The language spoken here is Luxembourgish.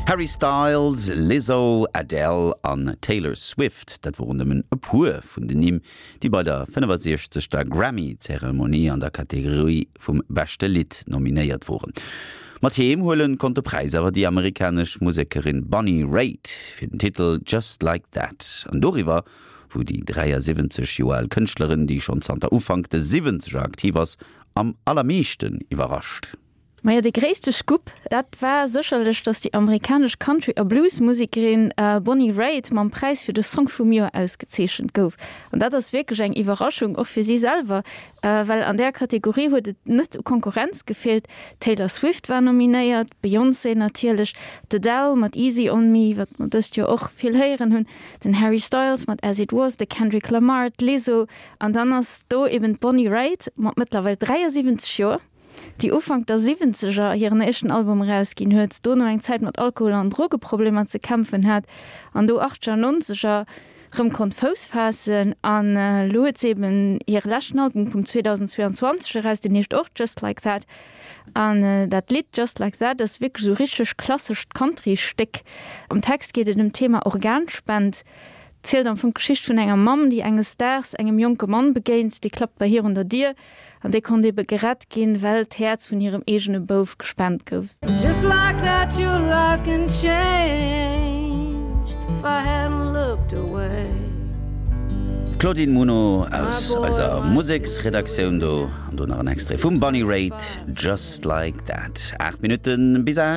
Harry Styles, Lizzo, Adele an Taylor Swift, dat woren nëmmen e puer vun den Nimm, déi bei der 65. Grammy-Zeremonie an der Kategorie vum beschte Lidd nominéiert woren. Mat heem huelen konnt de Präis awer déi amerikanesch Musekerin Bonnie Raitt fir den Titel Just Like That. An doriwwer wou déi 73 Joer al Kënschtlerin, déi schonn zanter Ufank de Siwwenzeger aktiv ass, am allermeeschten iwwerrascht. Majo, de gréisste Scoop, dat war sécherlech, datt déi amerikanesch Country a Blues-Musekerin Bonnie Raitt mam Präis fir de Song vum Joer ausgezeechent gouf. An dat ass wierklech eng Iwwerraschung, och fir si selwer, well an där Kategorie huet et net u Konkurrenz gefeelt. D'Taylor Swift war nominéiert, d'Beyoncé natierlech, d'Adele mat Easy on Me, wat mer dëst Joer och vill héieren hunn, den Harry Styles mat As It Was, de Kendrick Lamar, d'Lizzo an dann ass do eben d'Bonnie Raitt mat mëttlerweil 73 Joer. déi Ufank der Siwwenzeger hiren éischten Album erausginn huet, dono eng Zäit mat Alkohol an Drogeproblemer ze kämpfen hat an do Achteger, Nonzeger rëm konnt Fouss faassen. An elo huet se eben hire leschten Album vum 2022 eraus, deen heescht och Just Like That. An dat Lidd Just Like That ass wierklech esou richteg klassescht Country-Stéck. Am Text geet et ëm d'Thema Organspend, zielt am Fong d'Geschicht vun enger Mamm, déi enges Daags engem jonke Mann begéint, dee klappt bei hir un der Dier An déi konnt ebe gerett ginn, well d'Häerz vun hirem eegene Bouf gespent gouf. Just like that your life can change if I hadn't looked away. D'Claudine Muno aus eiser Museksredaktioun do, an do nach en Extrait vum Bonnie Raitt, Just Like That. 8 Minutten bis 8.